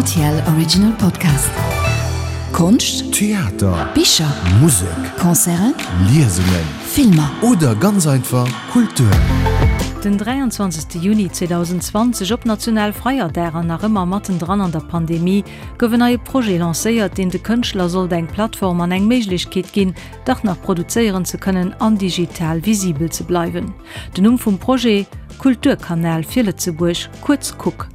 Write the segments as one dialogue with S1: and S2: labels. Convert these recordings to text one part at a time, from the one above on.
S1: Rtl Original Podcast. Konscht,
S2: Theater,
S1: Bicher,
S2: Musek,
S1: Concerten,
S2: Liesungen,
S1: Filmer.
S2: Oder ganz einfach Kultur.
S3: Den 23 Juni 2020, op Nationalfeierdag an nach ëmmer mattendran an der Pandemie, gouf en neie Projet lancéiert, deen de Kënschtler sollt eng Plattform an eng Méiglechkeet ginn, dach nach produzéieren ze kënnen an digital visibel ze bleiwen. Den Numm vum Projet, Kulturkanal fir Lëtzebuerg, kuerz Kuk.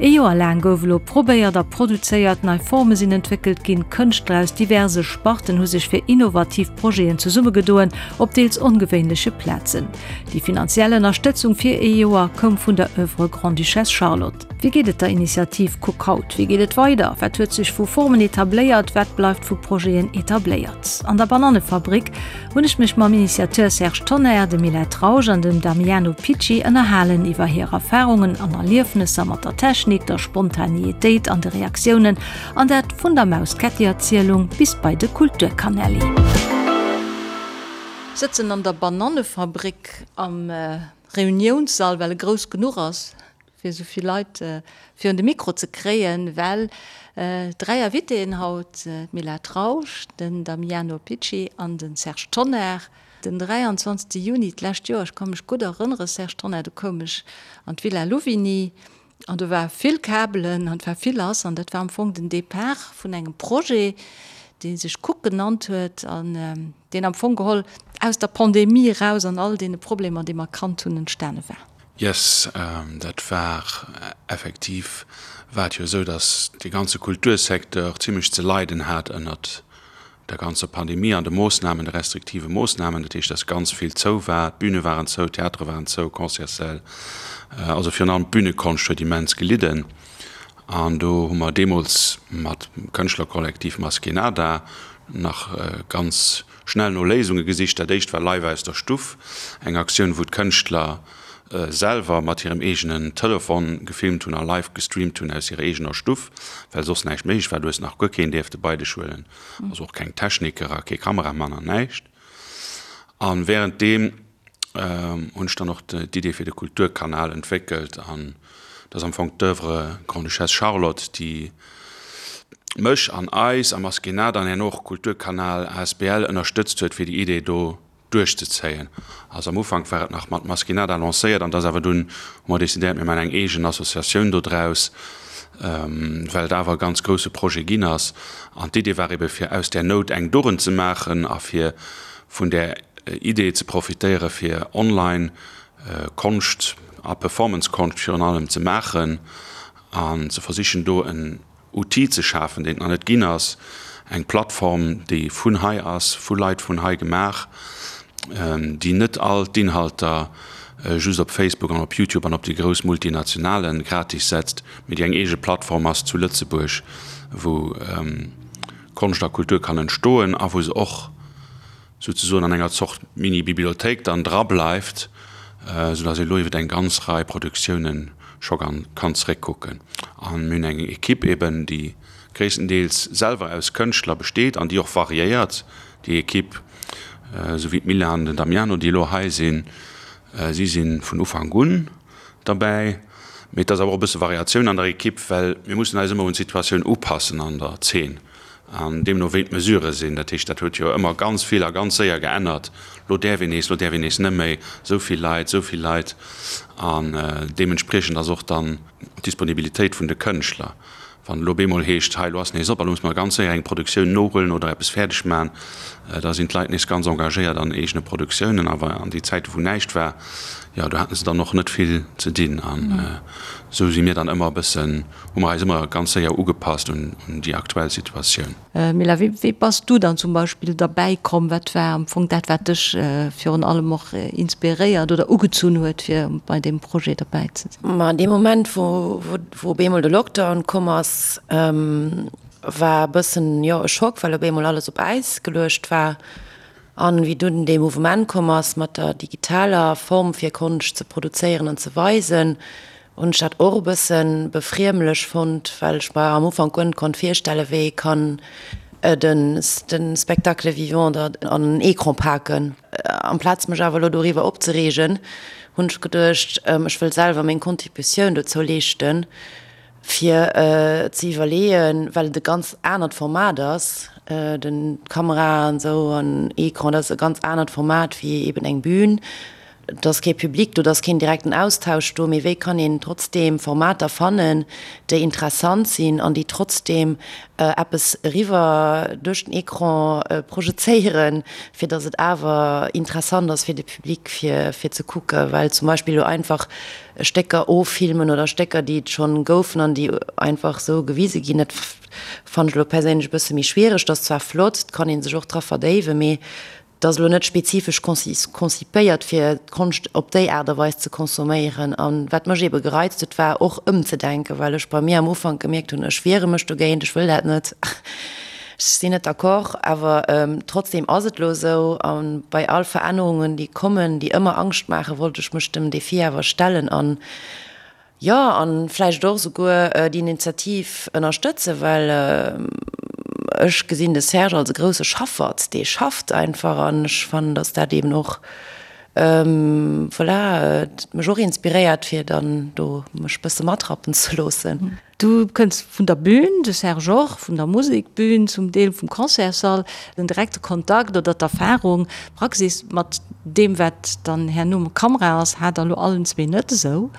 S3: Ee Joer laang gouf elo probéiert a produzéiert, nei Forme sinn entwéckelt ginn, Kënschtler aus diverse Sparten hu sech fir innovativ Projeten zesummegedoen, op deels ongewéinleche Plazen. Déi finanziell Ënnerstëtzung fir ee Joer koum vun der Oeuvre Grande-Duchesse Charlotte. Wéi geet et der Initiativ Kuk haut? Wéi geet et weider? Wat huet sech vu Formen etabléiert? Wat bleift vu Projeten etabléiert? An der Banannefabrik hunn ech mech mam Initiateur Serge Tonnar, dem Mila Trausch an dem Damiano Picci ënnerhalen iwwer hir Erfarungen an Erliefnesser mat der Technik, der Spontaneetéit an de Reaktiounen, an dat vun der Maus-Ketti-Erzielung bis bei de Kulturkanelli. Sëtzen an der Banannefabrik am Reuniounssall, well e grouss genuch ass. fir esou vill Leit virun de Mikro ze kréien, well 3 Invitéen haut, d'Mila Trausch, den Damiano Picci an de Serge Tonnar. Den 23 Juni d'lescht Joer, ech ka mech gutt erënnere Serge Tonnar, do koum ech an d'Villa Louvigny an do war vill Kabelen an et war vill lass an dat war am Fong den Depart vun engem Projet, dee sech Cook genannt huet an deen am Fong geholl aus der Pandemie eraus an all deene Problemer, déi mer kannt hunn, entstane war.
S4: Yes, dat war effektiv, war et jo esou, datt dee ganze Kultursecteur zimlech ze leiden hat ënnert der ganzer Pandemie an de Moossnamen, de restriktive Moossnamen. Dat heescht, datt ganz vill zou war, d'Büne waren zou, d'Theatere waren zou, Concertssäll, also virun allem d'Bünekonscht huet immens gelidden. An do hu mer deemools mat dem Kënschtlerkollektiv Maskénada nach ganz schnell no Léisunge gesicht. Dat éischt war Live aus der Stuff, eng Aktioun, wou d'Kënschtler selwer mat hirem eegenen Telefon gefilmt hunn a live gestreamt hunn aus hirer eegener Stuff, well soss näischt méiglech war. Du hues nach guer keen dierfte bei dech huelen, also och keng Techniker a kee Kameramann an näischt. A wärenddeem hunn ech dann och d'Idee fir de Kulturkanal entwéckelt an dat ass am Fong d'Oeuvre Grande-Duchesse Charlotte, déi mech an eis am Askénat an herno och Kulturkanal asbl ënnerstëtzt huet, fir déi Idee do duerchzezéien. Also am Ufank war et nach mat Maskénada lancéiert an da ass awer dunn hu mer decidéiert, mir maachen eng eegen Associatioun do draus, well et awer e ganz grousse Projet ginn ass. An d'Idee war ebe fir aus där Nout eng Dugend ze maachen a fir vun där Idee ze profitéiere fir online Konscht a Performance-Konscht virun allem ze maachen an ze versichen do en Outil ze schafen, deen et nach net ginn ass, eng Plattform, déi vun hei ass, vu Leit vun hei gemaach, déi net all d'Inhalter just op Facebook an op YouTube an op déi grouss Multinationale gratis setzt, mee déi eng eege Plattform ass zu Lëtzebuerg, wou Konscht a Kultur kann entstoen a wou se och souzesoen an enger Zort Mini-Bibliothéik dann dra bleift, soudass ee lo iwwer eng ganz Rei Produktiounen scho kann zeréckkucken. A mir hunn eng Ekipp eben, déi gréisstendeels selwer aus Kënschtler besteet an déi och variéiert, déi Ekipp, esou wéi d'Mila an den Damiano, déi elo hei sinn. Si si vun Ufank un derbäi. Mee et ass awer och e bësse Variatioun an der Ekipp, well mir mussen eis ëmmer un d'Situatioun upassen an der Zeen an deemno wéi d'Mesurë sinn. Dat heescht, dat huet jo ëmmer ganz vill a ganz séier geännert. Lo däerf een nees, lo däerf een nees net méi, esou vill Leit, esou vill Leit. An deementspriechend ass och dann d'Disponibilitéit vun de Kënschtler. Wann elo bemol heescht, hei elo ass nees op a lo musse mer ganz séier eng Produktioun nohuelen oder eppes fäerdeg maachen, da sinn d'Leit nees ganz engagéiert an eegene Produktiounen. Awer an déi Zäite wou näischt war, jo do hate se dann och net vill ze dinn. An esou si mir dann ëmmer e bëssen, hu mer eis ëmmer ganz séier ugepasst un déi aktuell Situatioun.
S3: Mila, wéi bass du dann zum Beispill derbäi komm? Wat war am Fong dat, wat dech virun allem och inspiréiert oder ugezunn huet, fir bei deem Projet derbäi ze
S5: sinn? Ma an deem Moment, wou wou op eemol de Lockdown komm ass, war e bëssen, jo, e Schock, well op eemol alles op Äis geluecht war. An wéi dunn dee Mouvement komm ass mat der digitaler Form fir Konscht ze produzéieren an ze weisen, hunn ech dat och e bësse befriemlech fonnt, well ech mer am Ufank guer net konnt virstellen, wéi ee kann de Spectacle vivant da an en Ecran paken. Amplaz mech awer elo doriwwer opzereegen, hunn ech geduecht, ech wëll selwer meng Contributioun dozou leeschten. fir ze iwwerleeën, well et e ganz anert Format ass, den d'Kamera an esou an Ecran, dat ass e ganz anert Format wéi eben eng Bühn. Et ass kee Public do, et ass keen direkten Austausch do, mee wéi kann een trotzdeem Formater fannen, déi interessant sinn an déi trotzdeem eppes eriwwer duerch den Ecran projezéieren, fir datt et awer interessant ass fir de Public fir fir ze kucken, well zum Beispill elo einfach Stécker offilmen oder Stécker, déi et schonn goufen an déi einfach esou gewise ginn, dat fannen ech elo perséinlech e bësse méi schwiereg. Dat ass zwar flott, et kann ee sech och dra verdéiwen, mee Et ass elo net spezifesch konzipéiert, fir d'Konscht op déi Aart a Weis ze consomméieren. A wat mech eebe gereizt huet, war och ëmzedenken, well ech bei mir am Ufank gemierkt hunn, ech wiere mech dogéint, ech wëll dat net, ech sinn net d'accord. Awer trotzdeem ass et elo esou. A bei all Verännerungen, déi kommen, déi ëmmer Angscht maachen, wollt ech mech dem Defi awer stellen an Jo, an vläicht och esouguer déi Initiativ ënnerstëtzen, well ech gesinn de Serge als e grousse Schaffert, dee schafft einfach an ech fannen, datt dat eben och, voilà, mech och inspiréiert, fir dann do mech bësse matrappen ze loossen.
S3: Du kënns vun der Bühn, de Serge och, vun der Musekbühn, zum Deel vum Concertssall. Den direkte Kontakt oder d'Erfahrung, d'Praxis mat deem, wat dann herno mat Kamera ass, hat der elo allen zwee net esou.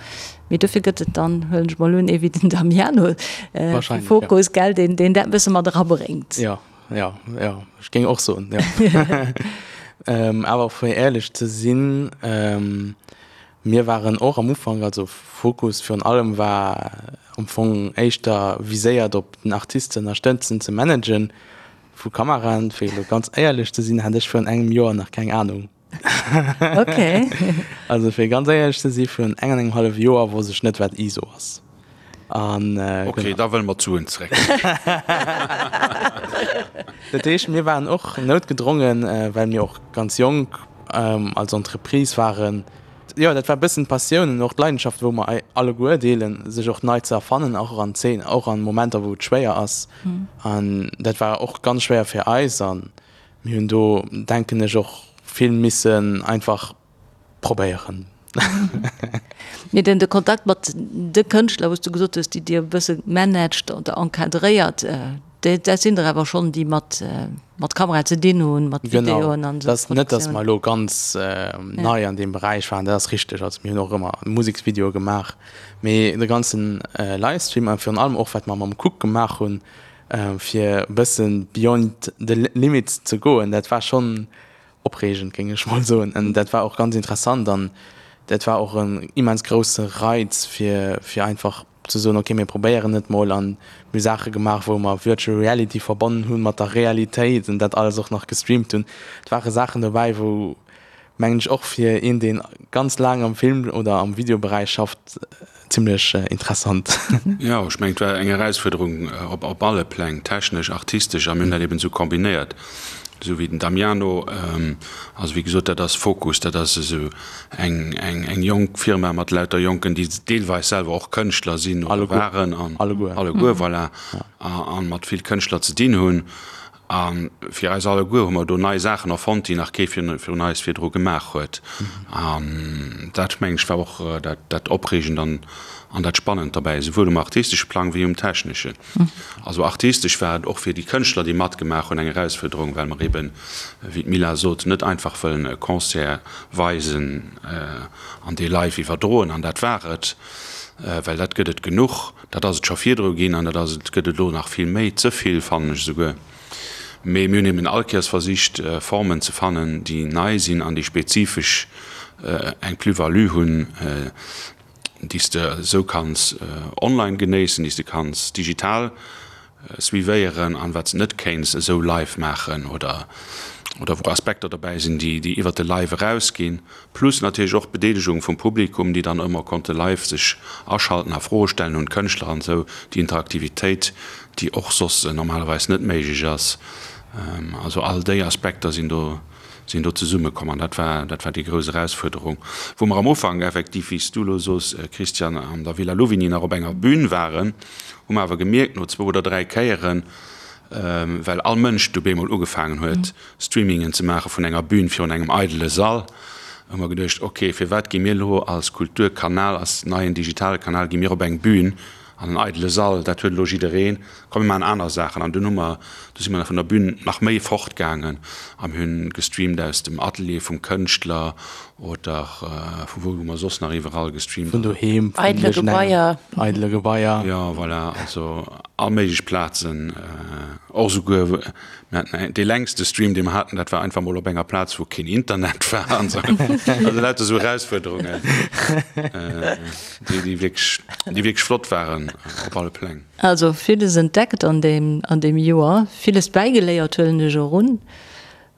S3: Mee dofir gëtt et dann, huelen ech mol un, ee wéi den Damiano vu Fokus, gell, deen dat e bësse mat erabréngt.
S6: Jo, jo, jo, ech géing och soen, jo. Awer fir éierlech ze sinn, Mir waren och am Ufank, also Fokus virun allem war am Fong éischter viséiert op den Artist ze ënnerstëtzen, ze managen vu Kameraen. Fir elo ganz éierlech ze sinn, hat ech virun engem Joer nach keng Anung.
S3: Okay.
S6: Also fir ganz éierlech ze si virun eng an engem hallef Joer wosst ech net wat ISO ass.
S4: An okay, da wëlle mer d'Suen zréck.
S6: Dat heescht, mir waren och noutgedrongen, well mir och ganz jonk als Entreprise waren, jo, dat war e bëssen d'Passioun an och d'Leidenschaft, wou mer alleguer deelen, sech och nei ze erfannen, och an Zeen, och an Momenter, wou et schwéier ass. An dat war och ganz schwéier fir eis an mir hunn do, denken ech, och vill missen einfach probéieren.
S3: Mee den de Kontakt mat de Kënschtler, wou s du gesot hues, déi Dir e bësse managt oder encadréiert, dat sinn der awer schonn, déi mat mat Kamera ze dinn hunn, mat
S6: Videoen an esou. Genau, et ass net, datt mer elo ganz nei an deem Beräich waren, dat ass richteg. Also mir hunn och ëmmer Museksvideoe gemaach, mee de ganzen Livestream a virun allem och wat mer mam Cook gemaach hunn, fir e bësse beyond the limits ze goen, dat war schonn Opreegend, géing ech mol soen. An dat war och ganz interessant an dat war och en immens grousse Reiz, fir, fir einfach ze soen, okay, mir probéieren et mol. An mir hu Saache gemaach, wou mer Virtual Reality verbonnen hu mat der Realitéit an dat alles och nach gestreamt hunn. Et ware Saachen dobäi, wou, mengen ech, och fir een, dee ganz laang am Film oder am Videoberäich schafft, Zimlech interessant.
S4: Jo, ech mengen, et war eng Erausfuerderung op alle Pläng, technesch, artistesch, a mir hunn dat eben esou kombinéiert, esou wéi den Damiano. Also wéi gesot, dat ass Fokus, dat ass esou eng eng jonk Firma mat lauter Jonken, déi deelweis selwer och Kënschtler sinn oder waren, an alleguer, voilà, a mat vill Kënschtler ze dinn hunn. A fir eis alleguer hu mer do nei Saachen erfonnt, déi nach kee virun eis virdru gemaach huet. An dat, mengen ech, war och dat Opreegend an dat Spannend derbäi, esouwuel um artistesche Plang wéi um techneschen. Also artistesch war et och fir déi Kënschtler, déi matgemaach hunn, eng Erausfuerderung, well mer eben, wéi d'Mila sot, net einfach wëllen e Concert weisen an dee live iwwerdroen an dat war et, well dat gëtt et genuch. Dat ass et scho virdru ginn an dat ass et, gëtt et elo nach vill méi, ze vill fannen ech esouguer. Mee mir hunn eben all Kéiers versicht, Formen ze fannen, déi nei sinn an déi spezifesch eng Plus-value hunn, déi s de esou kanns online genéissen, déi s de kanns digital suivéieren an wat s de net kéints esou live maachen oder oder wou Aspekter dobäi sinn, déi déi iwwert de Live erausginn. Plus natierlech och d'Bedeelegung vum Publikum, déi dann ëmmer konnte live sech aschalten a Froe stellen un d'Kënschtler an esou, déi Interaktivitéit, déi och soss normalerweis net méiglech ass. Also all déi Aspekter sinn do sinn do zesummekomm an dat war dat war déi grouss Erausfuerderung, wou mer am Ufank effektiv, wéi s du elo sos, Christian, an der Villa Louvigny nach op enger Bün waren, hu mer awer gemierkt no zwou oder dräi Kéieren, well all Mënsch du bemol ugefaangen huet, Streamingen ze maache vun enger Bühn virun engem eidele Sall, hu mer geduecht, ok, firwat gi mir elo als Kulturkanal, als neien digitale Kanal, gi mir op eng Bühn? An en eidele Sall, dat huet elo jiddereen. Komm mir maachen aner Saachen. An dunn hu mer, du si mer vun der Bühn nach méi fortgaangen a mir hunn gestreamt aus dem Atelier vum Kënschtler oder vu wou hu mer soss nach iwwerall gestreamt?
S6: Vun doheem,
S5: vun eidele Gebaier.
S6: Eidele Gebaier.
S4: Jo, voilà, also all méiglech Plazen. Och esouguer, mir haten dee längste Stream, dee mer haten, dat war einfach mol op enger Plaz, wou keen Internet war an esou. Also lauter esou Erausfuerderungen, déi, déi wierklech, déi wierklech flott waren op alle Pläng.
S3: Also villes entdeckt an deem, an deem Joer, villes bäigeléiert, huelen ech och un.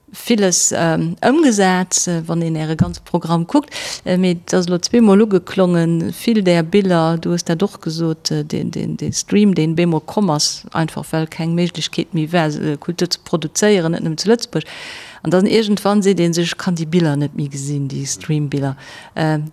S3: Villes ëmgesat, wann een Äre ganze Programm kuckt. Mee et ass elo zweemol ugeklongen, vill där Biller, du hues dat och gesot, dee Stream, deen bemol komm ass, einfach well keng Méiglechkeet méi war, Kultur ze produzéieren, net nëmmen zu Lëtzebuerg. An dann iergendwann seet ee sech, ech kann déi Biller net méi gesinn, déi Stream-Biller.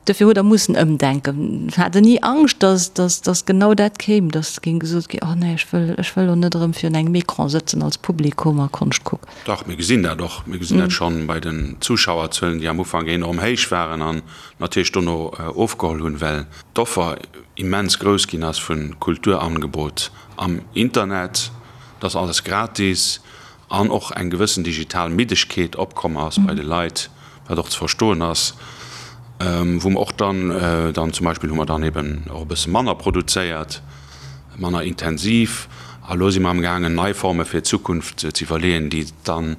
S3: Dofir hutt Der mussen ëmdenken. Hat Der ni Angscht, dass, dass, dass genau dat kéim, dass géing gesot ginn, oh nee, ech wëll, ech wëll elo net erëm virun engem Ecran sëtzen als Publikum a Konscht kucken?
S4: Dach, mir gesinn dat och. Mir gesinn dat schonn bei den Zuschauerzuelen, déi am Ufank enorm héich waren an natierlech dono ofgeholl hunn, well d'Offer immens grouss ginn ass vu Kulturangebot am Internet. Et ass alles gratis an och eng gewëssen digital Middegkeet opkomm ass bei de Leit, wat och ze verstoen ass, wou mer och dann, dann zum Beispill hu mer dann eben och e bësse manner produzéiert, manner intensiv. A lo si mer amgaangen, nei Forme fir d'Zukunft ze iwwerleeën, déi dann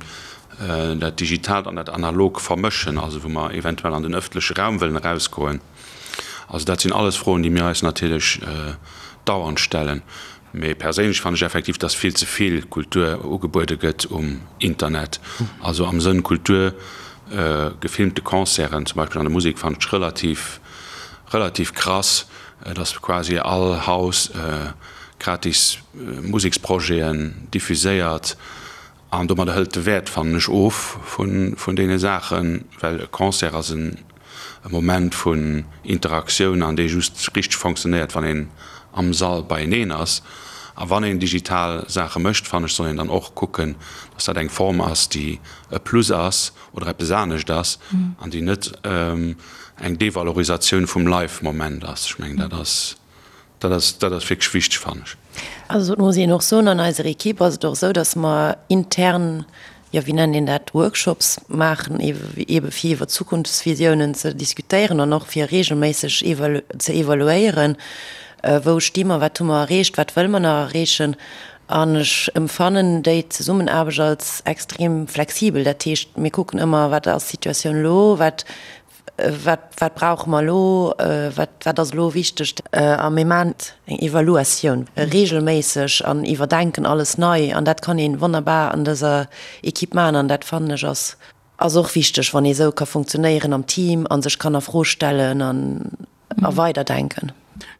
S4: dat Digitaalt an dat Analog vermëschen, also wou mer eventuell an den ëffentleche Raum wëllen erausgoen. Also dat sinn alles Froen, déi mir eis natierlech dauernd stellen. Mee perséinlech fannen ech effektiv, dass vill ze vill Kultur ugebuede gëtt um Internet. Also am Sënn Kultur, gefilmte Concerten zum Beispill an der Musek fannen ech relativ, relativ krass, dass quasi all Haus gratis Museksprojeten diffuséiert. An domadder hëlt de Wäert, fannen ech, of vun deene Saachen, well e Concert ass e Moment vun Interaktioun an dee just richteg fonctionnéiert, wann een am Sall beieneen ass. A wann een digital Saache mécht, fannen ech, soll een dann och kucken, dass dat eng Form ass, déi e Plus ass oder eppes anescht ass an déi net eng Devalorisatioun vum Live-Moment ass. Ech mengen, dat ass. Dat ass, dat ass wierklech wichteg, fannen ech.
S5: Also et muss een och soen, an eiser Equipe ass et och esou, datt mer intern, jo wéi nennt een dat, Workshops maachen, eebe fir iwwer Zukunftsvisiounen ze diskutéieren an och fir reegelméisseg ze evaluéieren, wou sti mer, wat hu mer erreecht, wat wëlle mer nach erreechen. An ech emfannen déi Zesummenaarbecht als extrem flexibel. Dat heescht, mir kucken ëmmer, wat ass d'Situatioun elo, wat Wat, wat brauche mer elo? Wat, wat ass elo wichteg? A mir maachen eng Evaluatioun reegelméisseg an iwwerdenken alles nei. An dat kann ee wonnerbar an dëser Equipe maachen. An dat fannen ech ass, ass och wichteg, wann ee esou ka funktionéieren am Team a sech kann a Fro stellen an a weiderdenken.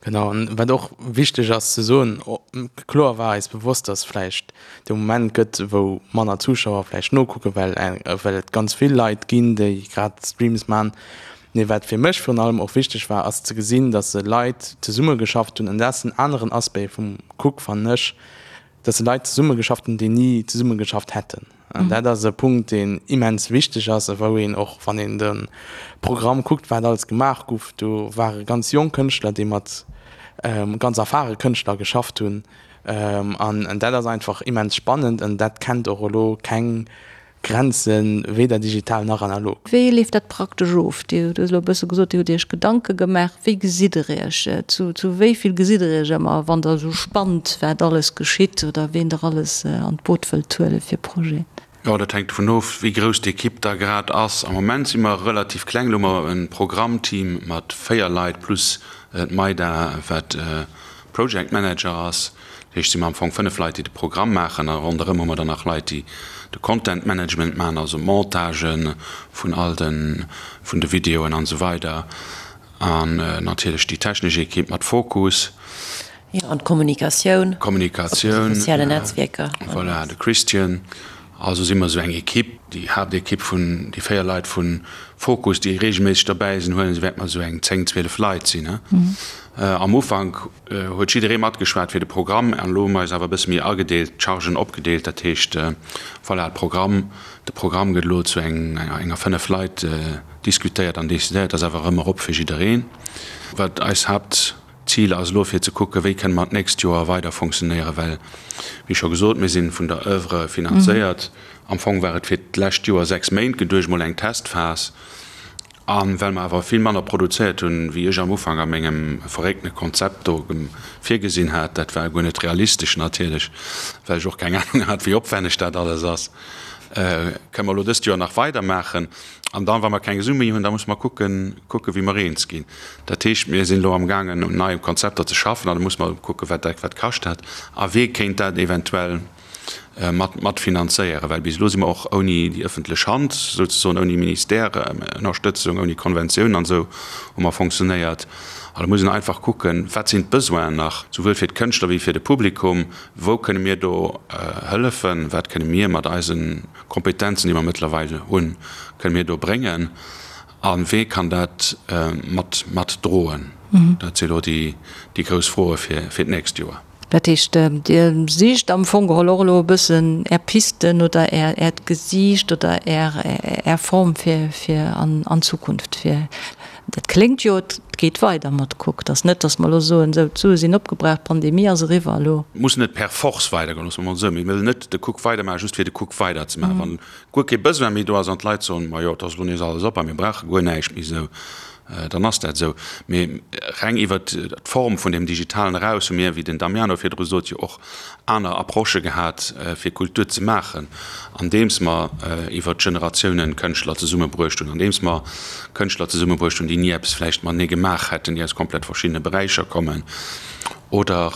S6: Genau, an wat och wichteg ass ze soen, kloer war eis bewosst, dass vläicht de Moment gëtt, wou manner Zuschauer vläicht nokucken, well well et ganz vill Leit ginn, déi grad Streams man. Mee wat fir mech virun allem och wichteg war, ass ze gesinn, dass se Leit zesummegeschafft hunn, an dat ass en aneren Aspect vum Cook, fannen ech, dass se Leit zesummegeschafft hunn, déi ni zesummegeschafft hätten. An dat ass e Punkt, deen immens wichteg ass a wou een och, wann een de Programm kuckt, wat alles gemaach guff, do ware ganz jonk Kënschtler, déi mat ganz erfahre Kënschtler geschafft hunn. An dat ass einfach immens spannend an dat kennt och elo keng Grenzen, weder digital nach analog.
S3: Wéi leeft dat praktesch of? Dir hutt elo e bësse gesot, Dir hutt Iech Gedanke gemaach. Wéi gesitt Der Iech? Zu wéi vill gesitt Der Iech ëmmer, wann Der esou spannt, wat alles geschitt oder ween Der alles an d'Boot wëllt huele fir Projeten?
S4: Jo, dat hänkt dovun of, wéi grouss d'Ekipp da grad ass. Am Moment si mer relativ kleng. Elo hu mer e Programmteam mat 4 Leit plus d'Maida, wat Project Manager ass. Dat heescht, si mer am Fong 5 Leit, déi de Programm maachen a ronderëm hu mer dann nach Leit, déi de Content Management maachen, also Montagen vun all de vun de Videoen an esou weider an natierlech déi technesch Ekipp mat Fokus.
S5: Jo, an d'Kommunikatioun.
S4: Kommunikatioun.
S5: Op de sozialen Netzwierker.
S4: Voilà, de Christian. Also si mer esou eng Ekipp, déi Haaptekipp vun déi 4 Leit vu Fokus, déi reegelméisseg derbäi sinn, huelen, esou wäerte mer esou eng 10, 12 Leit sinn. Am Ufank huet jidderee matgeschwat fir de Programm an elo hu mer eis awer e bësse méi agedeelt, d'Chargen opgedeelt. Dat heescht, voilà, de Programm, de Programm gëtt elo zu enger 5 Leit diskutéiert an decidéiert, ass awer ëmmer op fir jiddereen. Wat eis Haaptzil. D'Zil ass elo fir ze kucken, wéi kënne mer d'nächst Joer weider funktionéieren, well, wéi scho gesot, mir si vun der Oeuvre finanzéiert. Am Fong war et fir d'lescht Joer 6 Méint geduecht, mol eng Testphas. A well mer awer vill manner produzéiert hunn, wéi ech am Ufank a mengem verréckte Konzept do virgesinn hat, dat war guer net realistesch natierlech, well ech och keng Anung hat, wéi opwänneg dat alles ass, kënne mer elo dëst Joer nach weidermaachen. An dann, wa mer keng Sue méi hunn, da musse mer kucken, kucken, wéi mer eens ginn. Dat heescht, mir sinn elo amgaangen, un neie Konzepter ze schaffen an da musse mer kucken, wat dat wat kascht dat a wee kéint dat eventuell mat matfinanzéieren. Well bis elo si mer och ouni déi ëffentlech Hand, souzesoen ouni Ministère-Ënnerstëtzung, ouni Konventioun an esou hu mer fonctionnéiert. An da muss een einfach kucken, wat sinn d'Besoinen nach, souwuel fir d'Kënschtler wéi fir de Publikum, wou kënne mir do hëllefen, wat kënne mir mat eisen Kompetenzen, déi mer mëttlerweil hunn, kënne mir do bréngen a wee kann dat mat mat droen? Dat si elo déi grouss Froe fir fir d'nächst Joer.
S3: Dat heescht, Dir sicht am Fong geholl och elo e bëssen Är Pisten oder Äert Gesiicht oder Är Form fir fir an d'Zukunft, fir Dat kléngt jo, et geet weider mat Cook. Et ass net, datt mer elo soen, esou, d'Sue sinn opgebraucht, d'Pandemie ass eriwwer, elo.
S4: Muss net per force weidergoen, loosse mer emol esou. Mir wëllen net de Cook weidermaachen, just fir de Cook weiderzemaachen. Wann guer kee Besoin méi do ass an d'Leit soen, majo, et ass elo nees alles op a mir brauche guer näischt méi esou, dann ass dat esou. Mee reng iwwert d'Form vun deem Digitalen eraus hu mir, wéi den Damiano virdru sot, jo och aner Approchë gehat, fir Kultur ze maachen, andeems mer iwwer d'Generatiounen Kënschtler zesummebruecht hunn, andeems mer Kënschtler zesummebruecht hunn, déi ni eppes vläicht matenee gemaach hätten, déi aus komplett verschiddene Beräicher kommen, oder,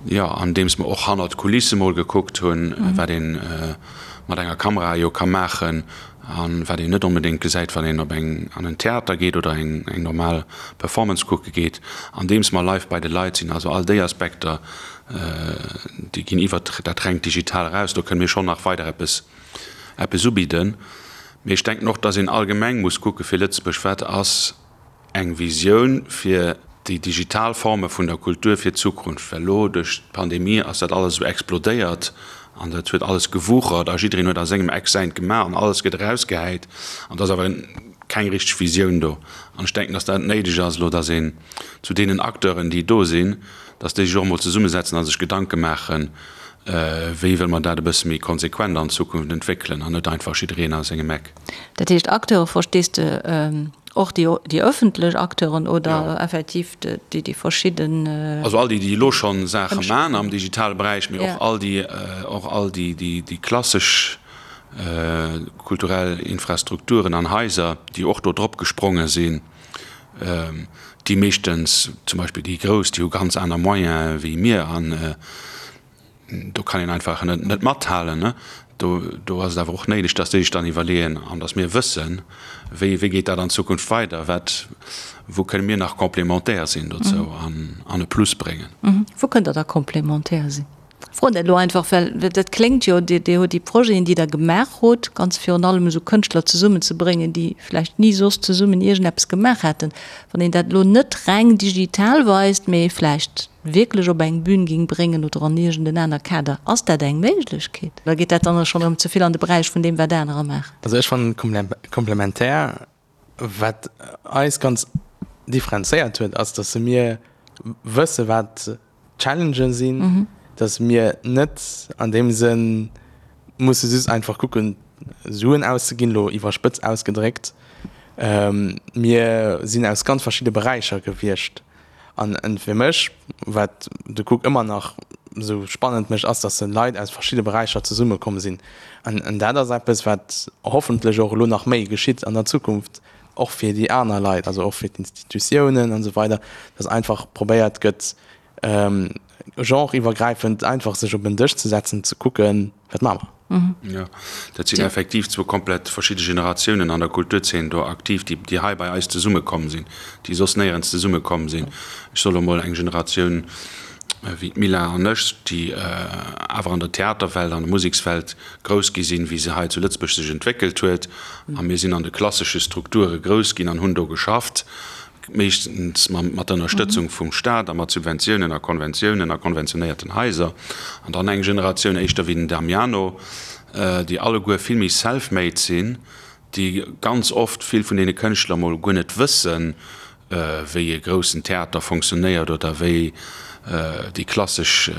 S4: jo, andeems mer och hannert d'Kulisse mol gekuckt hunn, wat ee mat enger Kamera jo ka maachen a wat een net onbedéngt gesäit, wann een op eng, an en Theater geet oder eng normal Performance kucke geet, andeems mer live bei de Leit sinn. Also all déi Aspekter, déi ginn iwwert dat rengt Digital eraus. Do kënne mir schonn nach weider eppes, eppes ubidden. Mee ech denken och, dass een allgemeng muss kucke fir Lëtzebuerg, Wat ass eng Visioun fir déi digital Forme vun der Kultur fir d'Zukunft, well elo duerch d'Pandemie ass dat alles esou explodéiert an dat huet alles gewuchert a jiddereen huet a sengem Eck säint gemaach an alles gëtt erausgehäit an et ass awer keng richteg Visioun do. An ech denken, datt dat néideg ass elo, datt een zu deenen Acteuren, déi do sinn, datt déi sech och emol zesummesetzen a sech Gedanke maachen, wéi wëlle mer dat e bësse méi konsequent an Zukunft entwéckelen an net einfach jiddereen a sengem Eck.
S3: Dat heescht, Acteure verstees de och déi, déi ëffentlech Acteuren oder effektiv déi, déi verschidden.
S4: Also all déi, déi elo scho Saache man am digitale Beräich, mee och all déi, och all déi, déi klassesch kulturell Infrastrukturen an Haiser, déi och do drop gespronge sinn. Déi meeschtens, zum Beispill déi grouss, déi hu ganz aner Moyene wéi mir an do kann een einfach net net mathalen. Do do ass et awer och néideg, datt déi sech dann iwwerleeën an datt mir wëssen, wéi wéi geet dat an Zukunft weider, wat wou kënne mir nach complémentaire sinn dozou an an e Plus bréngen.
S3: Wou kënnt Der da complémentaire sinn? Froen dat elo einfach, well dat kléngt jo, Dir Dir hutt déi Projeten, déi Der gemaach hutt, ganz virun allem esou Kënschtler zesummenzebréngen, déi vläicht ni soss zesummen iergendeppes gemaach hätten. Wann een dat elo net reng digital weist, mee vläicht wierklech op eng Bühn géing bréngen oder an iergend en aner Kader, ass dat eng Méiglechkeet? Oder geet dat dann schonn erëm ze vill an de Beräich vun deem, wat anerer maachen?
S6: Also ech fannen komplementär, wat eis ganz differenzéiert huet, ass, datt mir wësse wat Challengen sinn, dass mir net an deem Sënn musse just einfach kucken, Suen auszeginn, elo iwwerspëtzt ausgedréckt. Mir sinn aus ganz verschidde Beräicher gewiescht. An fir mech, wat de Cook ëmmer nach esou spannend mécht, ass, dass Leit aus verschidde Beräicher zesummekomm sinn. An dat ass eppes, wat hoffentlech och elo nach méi geschitt an der Zukunft, och fir déi aner Leit, also och fir d'Institutiounen an esou weider, dass einfach probéiert gëtt, genreiwwergräifend einfach sech op en Dësch ze setzen, ze kucken, wat maache mer.
S4: Jo, dat sinn effektiv zwou komplett verschidde Generatiounen an der Kulturzeen do aktiv, déi, déi hei bei eis zesummekomm sinn, déi soss néierens zesummekomm sinn. Ech soe lo mol eng Generatioun wéi d'Mila an ech, déi awer an der Theaterwelt, an der Musekswelt grouss gi sinn, wéi se hei zu Lëtzebuerg sech entwéckelt huet. A mir sinn an de klassesche Strukture grouss ginn an hunn do geschafft, meeschtens mat der Ënnerstëtzung vum Staat a mat Subventiounen a Konventiounen a konventionéierten Haiser. An dann eng Generatioun éischter wéi den Damiano, déi alleguer vill méi self-made sinn, déi ganz oft vill vun deene Kënschtler mol guer net wëssen. wéi e groussen Theater fonctionnéiert oder wéi déi klassesch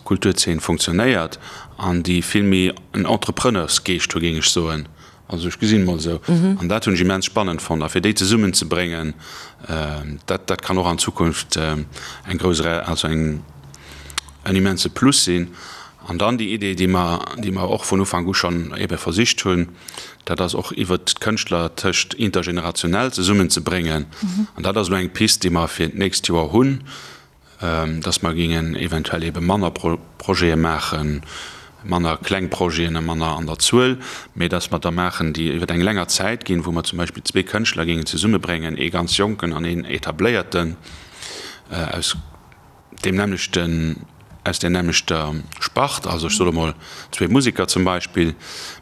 S4: Kulturzeen fonctionnéiert an déi vill méi en Entrepreneursgeescht hu géing ech soen. Also ech gesinn et mol esou. An dat hunn ech immens spannend fonnt. A fir déi zesummen ze bréngen, dat dat kann och an Zukunft eng grouss, also eng en immense Plus sinn. An dann déi Idee, déi mer, déi mer och vun Ufank u schonn ebe versicht hunn, dat ass och iwwert d'Kënschtler tëscht intergenerationell zesummenzebréngen. An dat ass elo eng Pist, déi mer fir d'nächst Joer hunn, dass mer géingen eventuell ebe manner Projete maachen, manner kleng Projeten a manner an der Zuel, mee dass mer der maachen, déi iwwer eng länger Zäit ginn, wou mer zum Beispill zwee Kënschtler géingen zesummebréngen, ee ganz Jonken an een Etabléierten aus deem nämmlechten, aus där nämmlechter Spart, also ech soe mol zwee Museker zum Beispill,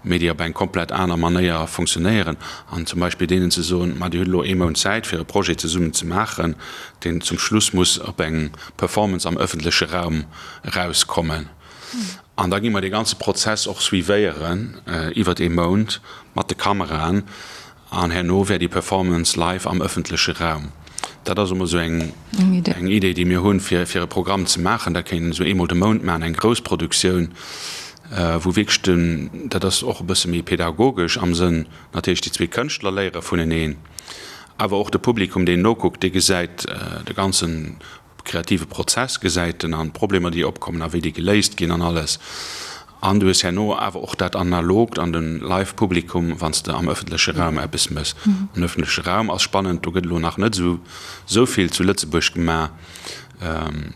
S4: mee déi op eng komplett aner Manéier funktionéieren, an zum Beispill deenen ze soen, ma Dir hutt elo ee Mount Zäit fir e Projet zesummen ze maachen, deen zum Schluss muss op eng Performance am ëffentleche Raum erauskommen. An da gi mer dee ganze Prozess och suivéieren iwwert ee Mount mat de Kameraen. An herno wär déi Performance live am ëffentleche Raum. Dat ass emol esou eng Idee, déi mir hunn, fir e Programm ze maachen. Dat kéint een esou eemol de Mount maachen, eng grouss Produktioun, wou wierklech den, dat ass och e bësse méi pedagogesch am Sënn, natierlech déi zwee Kënschtler léiere vuneneen, awer och de Publikum, deen nokuckt, dee gesäit de ganzen kreative Prozess gesäit en an d'Problemer déi opkommen a wéi déi geléist ginn an alles. An du hues herno awer och dat Analogt an de Live Publikum wann s de am ëffentleche Raum eppes mëss. An ëffentleche Raum ass spannend, do gëtt elo nach net esou esou vill zu Lëtzebuerg gemaach.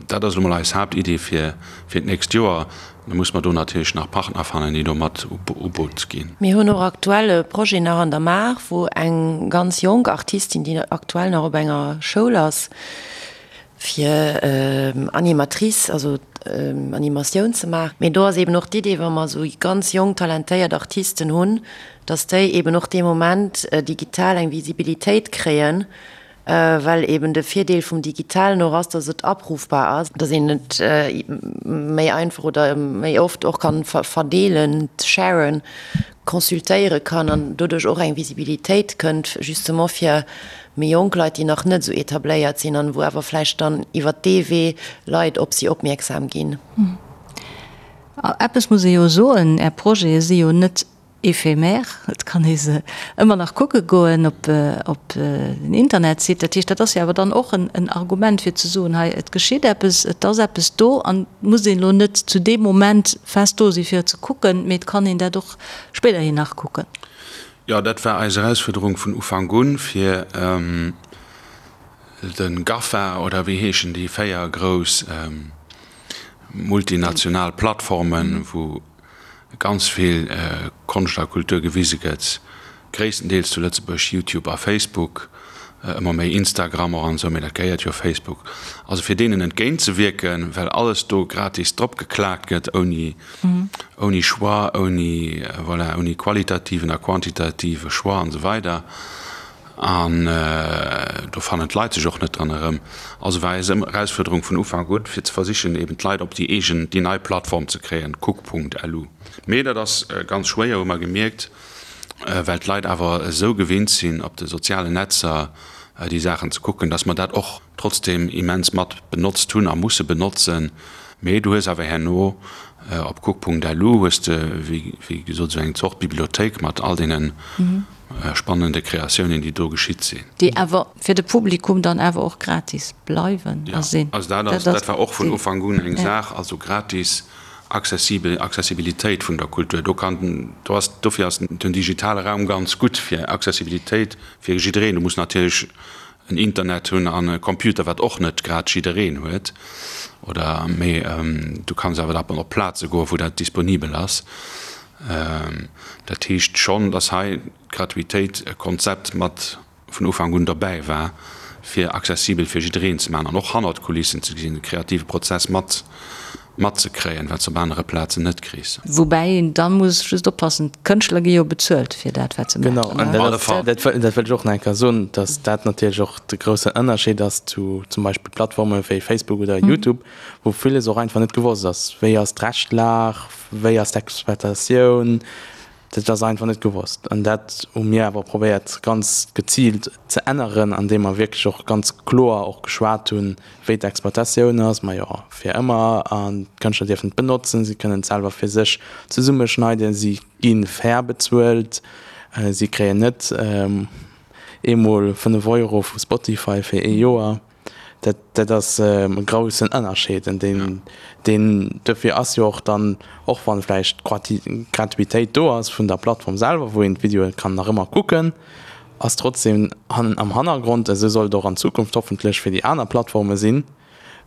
S4: Dat ass elo mol eis Haaptidee fir fir d'nächst Joer. Da muss mer do natierlech nach Partner fannen déi do mat u Boot ginn.
S5: Mir hunn och aktuell e Projet nach an der Maach, wou eng ganz jonk Artistin, déi aktuell nach op enger Schoul ass, fir Animatrice, also Animatioun ze maachen. Mee do ass eben och d'Idee, wa mer esou ganz jonk talentéiert Artisten hunn, datt déi eben och dee Moment digital eng Visibilitéit kréien, well eben de Virdeel vum Digitalen och ass, datt et abrufbar ass, datt een et méi einfach oder méi oft och kann verdeelen, sharen, consultéiere kann an doduerch och eng Visibilitéit kënnt, justement fir méi jonk Leit, déi nach net esou etabléiert sinn an wou awer vläicht dann iwwert dee Wee Leit op si opmierksam ginn.
S3: Eppes muss ee jo soen, Är Projete si jo net éphémère, et kann ee se ëmmer nach kucke goen op den Internetsite. Dat heescht, dat ass jo awer dann och en Argument fir ze soen, hei et geschitt eppes, et ass eppes do an et muss een elo net zu deem Moment fest do si fir et ze kucken, mee et kann een dat och spéiderhin nach kucken.
S4: Jo, dat war eis Erausfuerderung vun Ufank un, fir de GAFA, oder wéi heeschen déi 4 grouss multinational Plattformen, wou ganz vill Konscht a Kultur gewise gëtt, gréisstendeels zu Lëtzebuerg Youtube a Facebook, ëmmer méi Instagram och an esou, mee dat gehéiert jo Facebook, also fir deenen entgéint ze wierken, well alles do gratis drop geklaakt gëtt, ouni ouni Choix, ouni, voilà, ouni qualitativen a quantitative Choix an esou weider. An do fannen d'Leit sech och net dran erëm. Also war eis Erausfuerderung vun Ufank un, fir ze versichen, eben d'Leit op déi eegen, déi nei Plattform ze kréien, kuck.lu. Mee dat ass ganz schwéier, hu mer gemierkt, well d'Leit awer esou gewinnt sinn, op de sozialen Netzer déi Saachen ze kucken, dass mer dat och trotzdeem immens mat benotzt hunn a musse benotzen. Mee du hues awer herno op kuck.lu hues de, wéi gesot, esou eng Zort Bibliothéik mat all deene spannende Kreatiounen, déi do geschitt sinn.
S3: Déi awer fir de Publikum dann awer och gratis bleiwen a sinn.
S4: Jo, also dat ass, dat war och vun Ufank un eng Saach, also gratis, accessibel, Accessibilitéit vun der Kultur. Do kann, do ass, dofir ass den digitale Raum ganz gutt fir Accessibilitéit fir jiddereen. Du muss natierlech en Internet hunn an e Computer, wat och net grad jiddereen huet, oder, mee du kanns awer da op Plaze goen, wou dat disponibel ass. Dat heescht schonn, datt hei d'Gratuitéit e Konzept mat vun Ufank un derbäi war, fir accessibel fir jiddereen ze maachen an och hannert d'Kulissen ze gesinn, de kreative Prozess mat matzekréien, wat s de op anere Plazen net kriss.
S3: Woubäi een da muss just oppassen, d'Kënschtler gi jo bezuelt fir dat, wat se maachen.
S6: Genau, an dat dat wëllt ech och nach eng Kéier soen, datt dat natierlech och de groussen Ënnerscheed ass zu zum Beispill Plattforme wéi Facebook oder YouTube, wou villes och einfach net gewosst ass. Wéi ass d'Rechtlag, wéi ass d'Exploitatioun? Dat ass einfach net gewosst. An dat hu mir awer probéiert ganz geziilt ze änneren, andeem mer wierklech och ganz kloer och geschwat hunn, wéi d'Exploitatioun ass. Majo, fir ëmmer. An d'Kënschtler dierfen et benotzen, si kënnen et selwer fir sech zesummeschneiden, si gi fair bezuelt, si kréien net eemol 5 Euro vu Spotify fir ee Joer. Dat, dat ass e groussen Ënnerscheed. An deen, deen, dofir ass jo och dann, och wann vläicht d'Gratuitéit do ass vun der Plattform selwer, wou een d'Videoe kann nach ëmmer kucken, ass trotzdem am Hannergrond, esou soll et och an Zukunft hoffentlech fir déi aner Plattforme sinn,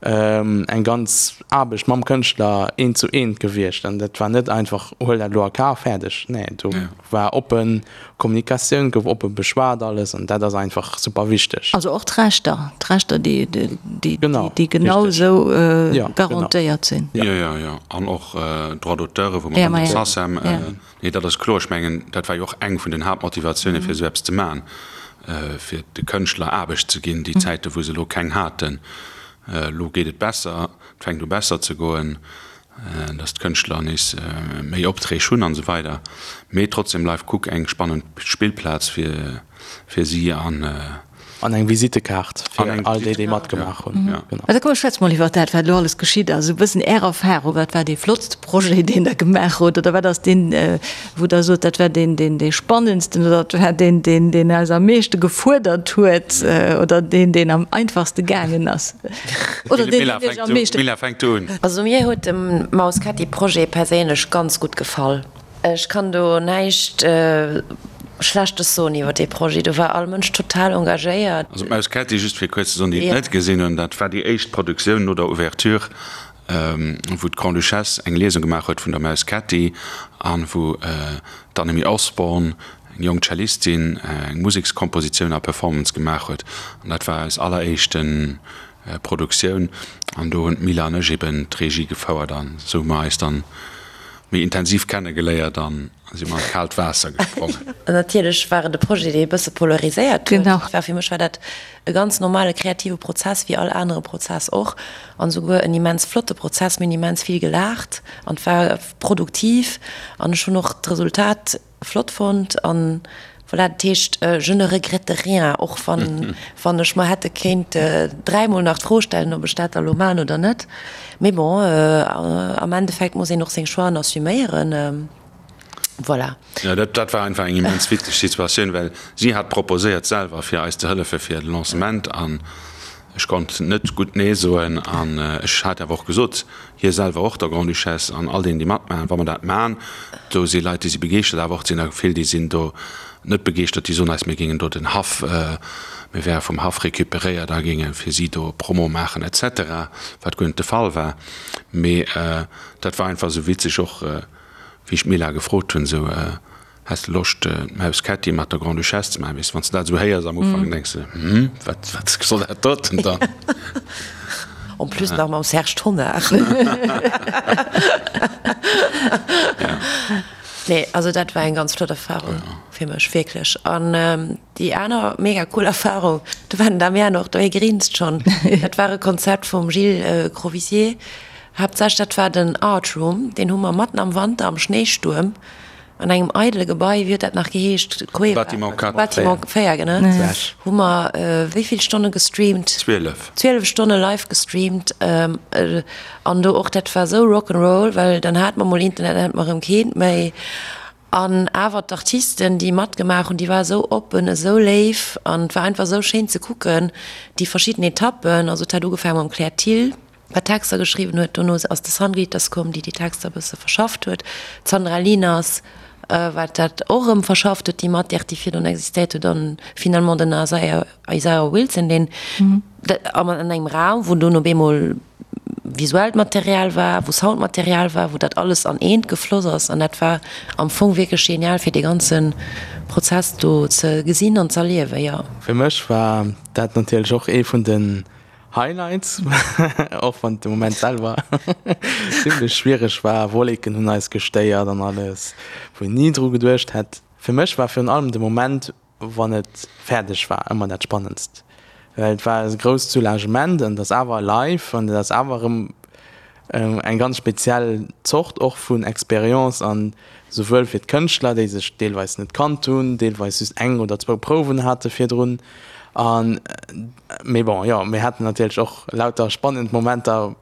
S6: eng ganz Aarbecht mam Kënschtler eent zu eent gewiescht. An dat war net einfach, huel dat elo a Kaf, fäerdeg. Nee, do war oppe Kommunikatioun, gouf oppe beschwat alles an dat ass einfach super wichteg.
S3: Also och d'Rechter, d'Rechter, déi, déi, déi genau esou garantéiert sinn.
S4: Jo, jo, jo. An och Droits d'auteure, wou mer mat der SACEM, Nee, dat ass kloer. Ech mengen, dat war jo och eng vun den Haaptmotivatiounen, fir esou eppes ze maachen, fir de Kënschtler Aarbecht ze ginn, déi Zäite wou se elo keng haten. Elo geet et besser, et fänkt u besser ze goen, datt d'Kënschtler nees méi Opträg hunn an esou weider. Mee trotzdem bleift Cook eng spannend Spillplaz fir si an.
S6: An eng Visittekaart fir all déi, déi matgemaach hunn.
S3: Mä da komm, schwätz mol iwwer dat, wat elo alles geschitt ass. Esou e bëssen Är Erfahrung. Wat war dee flottste Projet, deen Der gemaach hutt? Oder wat ass deen, wou Der sot, dat war deen, deen, dee spannendsten oder dat war deen, deen, deen eis am meeschte gefuerdert huet oder deen, deen am einfachste gaangen ass? Oder deen, deen Iech am meeschte.
S4: Milla, fänk du un.
S5: Also mir huet de Mausketti-Projet perséinlech ganz gutt gefall. Ech kann do näischt Schlechtes soen iwwer dee Projet. Do war all Mënsch total engagéiert.
S4: Also d'Maus Kätti, just fir kuerz ze soen, déi et net gesinn hunn, dat war déi éischt Produktioun no der Ouverture, wou d'Grande-Duchesse eng Liesung gemaach huet vun der Maus Kätti an wou d'Annemie Osborne, eng jonk Cellistin, eng Musekskompositioun a Performance gemaach huet. An dat war eis alleréischte Produktioun an do hunn d'Mila an ech eben d'Regie gefouert an esou hu mer eis dann méi intensiv kennegeléiert an si mer an d'kaalt Waasser gesprongen.
S5: Natierlech war et e Projet, dee e bësse polariséiert huet. Genau. War fir mech war dat e ganz normale kreative Prozess, wéi all anere Prozess och, an esouguer en immens flotte Prozess. Mir hunn immens vill gelaacht an et war produktiv an ech hunn och d'Resultat Flott fonnt an voilà, dat heescht je ne regrette rien, och wann wann ech mer hätte kéint dräimol nach d'Fro stellen, ob ech dat da lo man oder net. Mee bon, am Endeffekt muss een och seng Choixen assuméieren, voilà.
S4: Jo, dat dat war einfach eng immens witzeg Situatioun, well si hat proposéiert selwer fir eis ze hëllefe fir de Lancement an ech konnt net gutt nee soen an ech hat awer och gesot, Hie selwer och, der Grande-Duchesse an all deenen, déi matmaachen, wa mer dat maachen. Do si Leit, déi si begeeschtert, awer och et sinn der vill, déi sinn do net begeeschtert, déi soen eis, mir géingen do den Haff, mir wäre vum Haff récupéréiert a géinge fir si do Promo maachen et cetera, wat guer net de Fall war. Mee dat war einfach esou witzeg och, wéi ech d'Mila gefrot hunn, esou, Häss de Loscht d'Maus Kätti mat der Grande-Duchesse ze maachen? Weess de, wann s de dat esou héiers am Ufank, denks de, Hm, wat, wat soll dat doten dann?
S5: En plus nach mam Serge Tonnar. Nee, also dat war eng ganz flott Erfahrung fir mech, wierklech. An déi aner mega cool Erfahrung, do war den Damian och do, hie grinst schonn, dat war e Konzept vum Gilles Crovisier, haaptsächlech dat war den Art Room, deen hu mer matten am Wanter am Schnéistuerm An engem eidele Gebai, wéi huet dat nach geheescht?
S4: Cueva? Bâtiment 4.
S5: Bâtiment 4, genau. Hu mer wéi vill Stonne gestreamt?
S4: 12.
S5: 12 Stonne live gestreamt. An do och, dat war esou Rock 'n' Roll, well dann hate mer mol Internet, dann hate mer erëm keent méi. An awer d'Artisten, déi matgemaach hunn, déi ware esou oppen, esou léif an et war einfach esou schéin ze kucken, déi verschidden Etappen. Also et hat ugefaange mam Claire Thill. wat Texter geschriwwen huet, dono ass de San Glitters komm, déi déi Texter e bësse verschafft huet, d'Sandra Lieners, wat dat och erëm verschafft huet, déi Matière, déi virdrun existéiert huet, an finalement den Isaiah, Isaiah Wilson, deen an engem Raum, wou dunn op eemol visuellt Material war, wou Soundmaterial war, wou dat alles an eent gefloss ass, an dat war am Fong wierklech genial, fir dee ganze Prozess do ze gesinn an z'erliewen, jo.
S6: Fir mech war dat natierlech och ee vun den Highlights, och wann de Moment selwer zimlech schwiereg war, Wolleken hunn eis gestéiert an alles, wou een ni dru geduecht hätt. Fir mech war virun allem de Moment, wann et fäerdeg war, ëmmer dat Spannendst, well et war e grousst Soulagement an et ass awer live an et ass awer erëm. eng ganz speziell Zort och vun Expérience an souwuel fir d'Kënschtler, déi sech deelweis net kannt hunn, deelweis just eng oder zwou Prouwen hate virdrun an, mee bon, jo, mir haten natierlech och lauter spannend Momenter,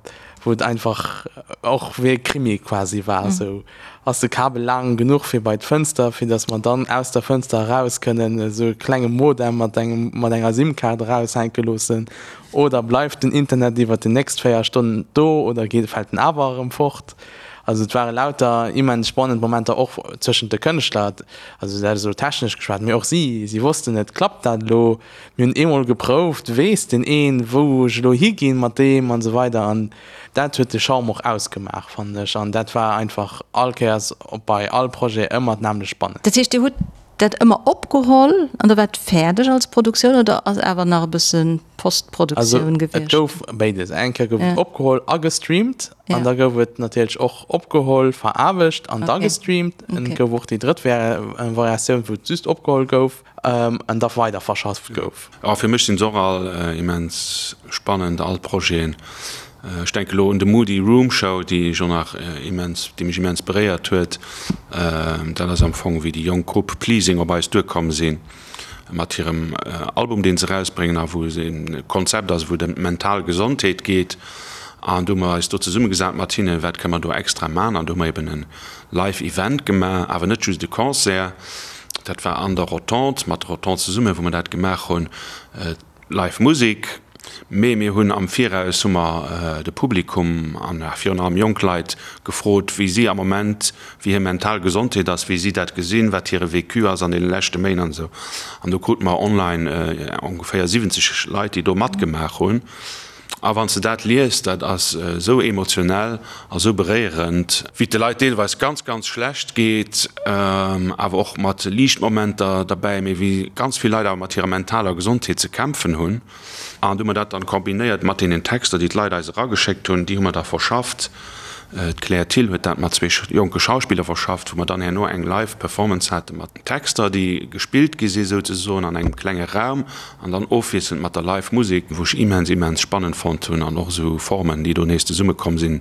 S6: wou et einfach och wéi e Krimi quasi war, esou ass de Kabel laang genuch fir bei d'Fënster, fir datt mer dann aus der Fënster eraus kënnen esou e klenge Modem mat engem, mat enger SIM-Kaart eraushänke loossen oder bleift den Internet iwwert déi nächst 4 Stonnen do oder geet, fält en awer erëm fort? Also et ware lauter immens spannend Momenter och zwëschent de Kënschtler, also dat ass elo technesch geschwat, mee och si, si wossten net, klappt dat elo, mir hunn eemol geprouft, weess deen een, wou ech elo higinn mat deem an esou weider an dat huet de Charme och ausgemaach, fannen ech an dat war einfach all Kéiers bei all Projet ëmmer d'nämmlecht spannend.
S3: Dat heescht, Dir hutt dat ëmmer opgeholl an da war et fäerdeg als Produktioun oder ass awer nach e bësse Postproduktioun
S6: gewiescht? Also et gouf béides. Eng Kéier gouf et opgeholl a gestreamt an da gouf et natierlech och opgeholl, veraarbecht an da gestreamt. Et gouf och déi drëtt Variatioun, wou et just opgeholl gouf an da weider verschafft gouf.
S4: Jo, fir mech sinn se och all immens spannend, all d'Projeten. Ech denke lo un de Moody Room Show, déi ech och nach immens, déi mech immens beréiert huet. Dat ass am Fong wéi déi jonk Grupp Pleasing op eis duerkomm sinn mat hirem Album, deen se erausbréngen a wou se e Konzept ass, wou et ëm d'mental Gesondheet geet. An do hu mer eis do zesummegesat mat hinnen, wat kënne mer do extra man. An do hu mer eben e Live Event gemaach, awer net just e Concert. Dat war an der Rotonde, mat der Rotonde zesummen, wou mer dat gemaach hunn. Live Musek, mee mir hunn am Viraus hu mer de Publikum an virun allem jonk Leit gefrot, wéi si am Moment, wéi hir mental Gesondheet ass, wéi si dat gesinn, wat hire Vécu ass an deene leschte Méint an esou. An do krute mer online ongeféier 70 Leit, déi do matgemaach hunn. A wann s de dat liest, dat ass esou emotionell a sou beréierend, wéi et de Leit deelweis ganz, ganz schlecht geet, awer och mat liicht Momenter derbäi, mee wéi ganz vill Leit awer mat hirer mentaler Gesondheet ze kämpfen hunn. An du hu mer dat dann kombinéiert mat deenen Texter, déi d'Leit eis erageschéckt hunn, déi hu mer da verschafft. D'Claire Thill huet dat mat zwee jonke Schauspiller verschafft, wou mer dann herno eng Live Performance hate mat Texter, déi gespillt gi si souzesoen an engem klenge Raum an dann ofwiesselnd mat der Live Musek, wou ech immens, immens spannend fonnt hunn an och esou Formen, déi do nees zesumme komm sinn,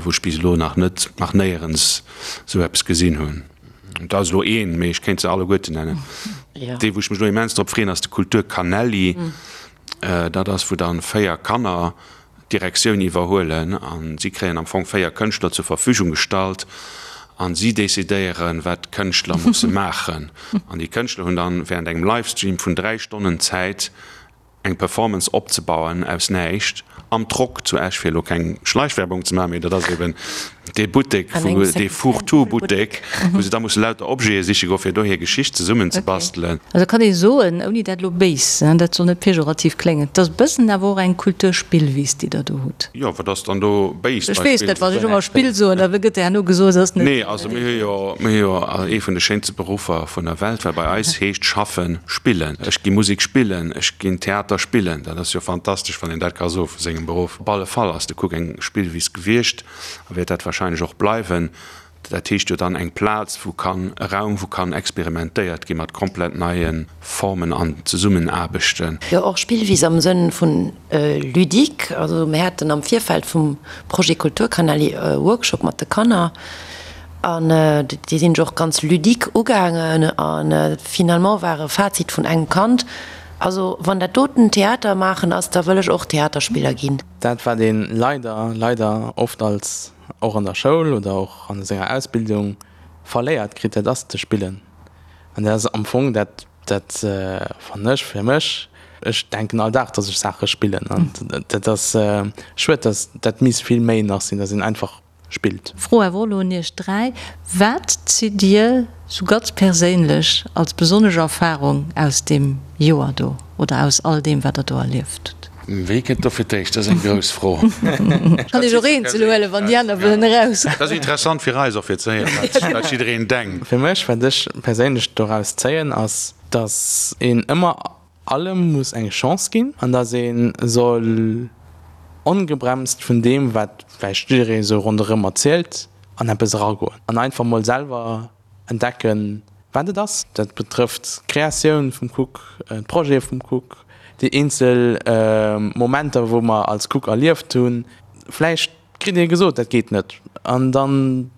S4: wou ech bis elo nach net, nach néierens esou eppes gesinn hunn. Dat ass elo een, mee ech kéint se alleguerten nennen. Dee wou ech mech elo immens drop freeën, ass de Kultur Canelli. Dat ass wou dann 4 Kanner d'Direktioun iwwerhuelen a si kréien am Fong 4 Kënschtler zur Verfügung gestallt a si decidéieren, wat d'Kënschtler musse maachen. An déi Kënschtler hunn dann während engem Livestream vun 3 Stonnen Zäit, eng Performance opzebauen aus näischt am Trock zu Esch, fir elo keng Schleichwerbung ze maachen, mee dat ass eben dee Buttek, wou dee Fourre-tout-Buttek, wou se da musse lauter Objete siche goen, fir do hir Geschicht zesummenzebastelen.
S3: Also kann ee soen, ouni dat elo béis, dat soll net pejorativ kléngen, et ass e bëssen awer och eng Kulturspillwiss, déi Der do hutt.
S4: Jo, wat ass dann do béis
S3: bei Ech weess net, wann ech ëmmer Spill soen, da gëtt herno gesot, et ass net.
S4: Nee, also mir hu jo, mir hu jo ee vun de schéinste Beruffer vun der Welt, well bei eis heescht schaffen spillen. Ech gi Musek spillen, ech ginn Theater spillen. Dat ass jo fantastesch, wann een dat ka soe vu sengem Beruff. Op alle Fall ass de Cook eng Spillwiss gewiescht a wäert dat wahrscheinlech och bleiwen. Dat heescht jo dann eng Plaz, wou kann, e Raum, wou kann experimentéiert gi mat komplett neie Formen an Zesummenaarbechten.
S5: Jo, och Spillwiss am Sënn vun ludique. Also mir haten am Virfeld vum Projet Kulturkanali e Workshop mat de Kanner an déi sinn ech och ganz ludique ugaangen a finalement war e Fazit vun engem Kand, Also wann dat doten Theater maachen ass, da wëll ech och Theaterspiller ginn.
S6: Dat wat ee leider, leider oft als och an der Schoul oder och an senger Ausbildung verléiert kritt, dat ass ze spillen. An dat ass am Fong dat, dat fannen ech fir mech, ech denken all Dag, dass ech Saache spillen. An dat ass schued, dass dat misst vill méi nach sinn, dass een einfach spillt.
S3: Fro awer och elo un iech 3, Wat zitt dir sou ganz perséinlech als besonnesch Erfarung aus deem Joer do oder aus all deem wat der do erlieft hutt?
S4: Wee kënnt do fir d'éischt? Dat ass eng grouss Fro.
S3: Kann ech och eenzel huelen, wann déi aner wëllen eraus.
S4: Dat ass interessant fir eis och fir ze héieren, wat jiddereen denkt.
S6: Fir mech, wat ech perséinlech doraus zéien, ass, dass een ëmmer allem muss eng Chance ginn an dass ee soll ongebremst vun deem, wat vläicht jidderee sou ronderëm erzielt, an eppes eragoen an einfach mol selwer entdecken, wat et ass. Dat betrëfft d'Kreatioun vum Cook, d'Projete vum Cook, déi eenzel Momenter, wou mer als Cook erlieft hunn. Vläicht. kritt ee gesot, dat geet net. An dann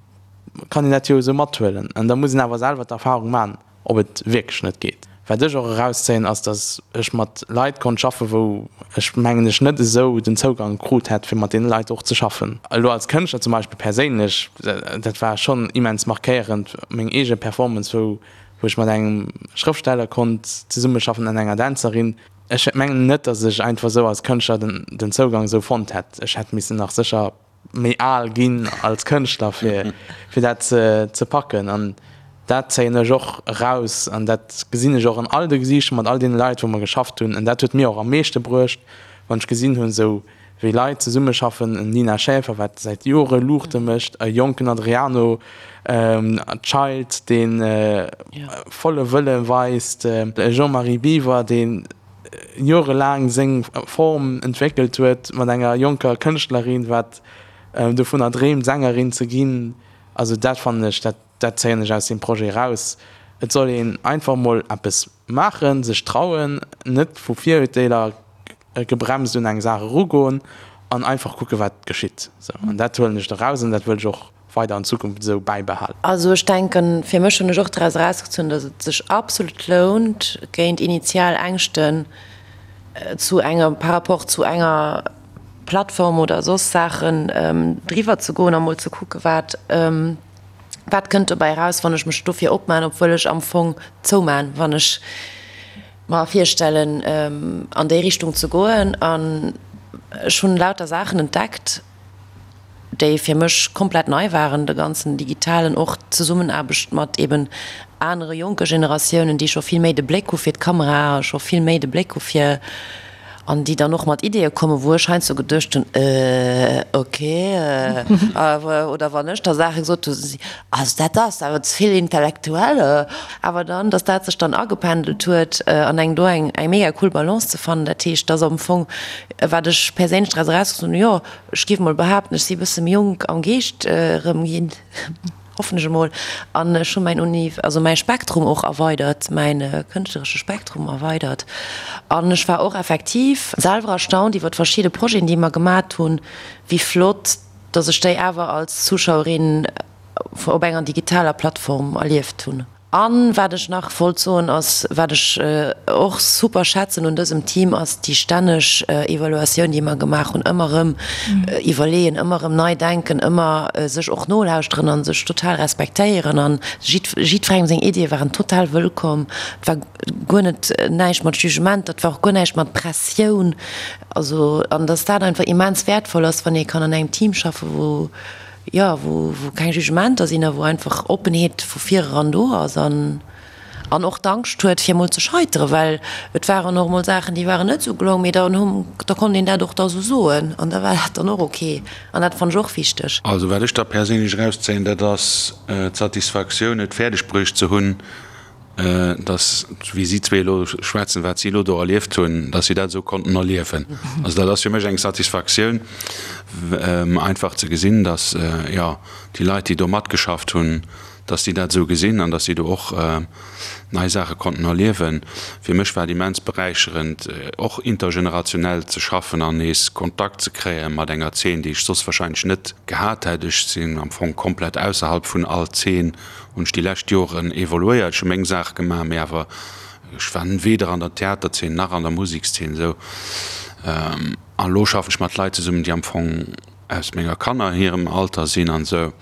S6: kann een dat jo esou mathuelen. An da muss een awer selwer d'Erfahrung maachen, ob et wierklech net geet. Wat ech och erauszéien, ass, datt ech mat Leit konnt schaffen, wou ech mengen ech net esou den Zougang krut hätt, fir mat deene Leit och ze schaffen. Elo als Kënschtler zum Beispill perséinlech, dat war schonn immens markéierend, meng eege Performance, wou ech mat engem Schrëftsteller konnt zesummeschaffen an enger Dänzerin. Ech mengen net, datt ech einfach esou als Kënschtler den Zougang esou fonnt hätt. Ech hätt missen nach sécher méi al ginn als Kënschtler fir fir dat ze ze packen an dat zéien ech och eraus an dat gesinn ech och an all de Gesiichter mat all deene Leit wou mer geschafft hunn an dat huet mir och am meeschte bruecht wann ech gesinn hunn esou wéi Leit zesummeschaffen, en Nina Schäfer wat säit Jore Luuchte mécht, e jonken Adriano Child dee volle Wëlle weist, e Jean-Marie Biwer dee jorelaang seng Form entwéckelt huet mat enger jonker Kënschtlerin, wat dovunner dreemt, Sängerin ze ginn. Also dat fannen ech, dat, dat zéien ech aus deem Projet eraus. Et soll een einfach mol eppes maachen, sech trauen, net vu Virurteeler gebremst un eng Saach erugoen an einfach kucke wat geschitt. Sou, an dat huelen ech eraus an dat wëll ech och weider an Zukunft esou bäibehalen.
S5: Also ech denken, fir mech hunn ech och draus erausgezunn, datt et sech absolut lount, géint initial Ängschten zu enger, par rapport zu enger Plattform oder soss Saachen driwwer ze goen a mol ze kucke wat, wat kënnt dobäi eraus, wann ech mech dofir opman, obwuel ech am Fong zouman, wann ech mer virstellen an déi Richtung ze goen. An ech hunn lauter Saachen entdeckt, déi fir mech komplett nei waren, de ganzen digitalen, och d'Zesummenaarbecht mat eben anere jonke Generatiounen, déi scho vill méi de Bléck hu fir d'Kamera a scho vill méi de Bléck hu fir, an déi dann och mat Ideeë kommen, wou ech heiansdo geduecht hunn, Äh, okay, oder wann ech da Saache gesot hu, si, Also dat ass awer ze vill intellektuell. Awer dann, datt dat sech dann agependelt huet an eng do eng mega cool Balance ze fannen, dat heescht, datt am Fong, wat ech perséinlech draus erausgezunn hunn, jo, Ech géif mol behaapten, ech si e bësse méi jonk am Geescht erëm ginn, hoffen ech emol, an ech hu mäin Uni, also mäi Spektrum och erweidert, mäin kënschtleresche Spektrum erweidert. An ech war och effektiv selwer erstaunt iwwer verschidde Projeten, déi mer gemat hunn, wéi flott dass ech déi awer als Zuschauerin op enger digitaler Plattform erlieft hunn. An wat ech nach wollt soen ass, wat ech och super schätzen un dësem Team, ass déi stänneg Evaluatioun, déi mer gemaach hunn, ëmmer erëm iwwerleeën, ëmmer erëm nei denken, ëmmer sech och nolauschteren a sech total respektéieren. An jiddwerengem seng Iddie waren total wëllkomm. Et war guer net näischt mat Jugement, dat war och guer näischt mat Pressioun. Also, an dass dat einfach immens wäertvoll ass, wann ee kann an engem Team schaffen, wou, jo, wou, wou keng Jugementer sinn a wou einfach Oppenheet vu vireran do ass an, an och d'Angscht huet, fir emol ze scheiteren, well et waren och emol Saachen, déi waren net esou gelong, mee dann hu, da konnt een dat och da esou soen an da war dat dann och ok an dat fannt ech och wichteg.
S4: Also wat ech da perséinlech erauszéien, dat ass d'Satisfaktioun, et fäerdeg bruecht ze hunn, dass, wéi si zwee elo schwätzen, wat si elo do erlieft hunn, dass si dat esou konnten erliewen. Also dat ass fir mech eng Satisfaktioun, einfach ze gesinn, dass, jo, déi Leit, déi do matgeschafft hunn, dass si dat esou gesinn an dass si do och nei Saache konnten erliewen. Fir mech war et immens beräicherend, och intergenerationell ze schaffen an nees Kontakt ze kréie mat enger Zeen, déi ech soss wahrscheinlech net gehat hätt. Ech sinn am Fong komplett ausserhalb vun all Zeen hunn ech déi lescht Joren evoluéiert. Ech hu meng Saach gemaach, mee awer ech war weder an der Theaterzeen nach an der Musekszeen esou. An elo schaffen ech mat Leit zesummen, déi am Fong aus menger Kanner hirem Alter sinn an esou.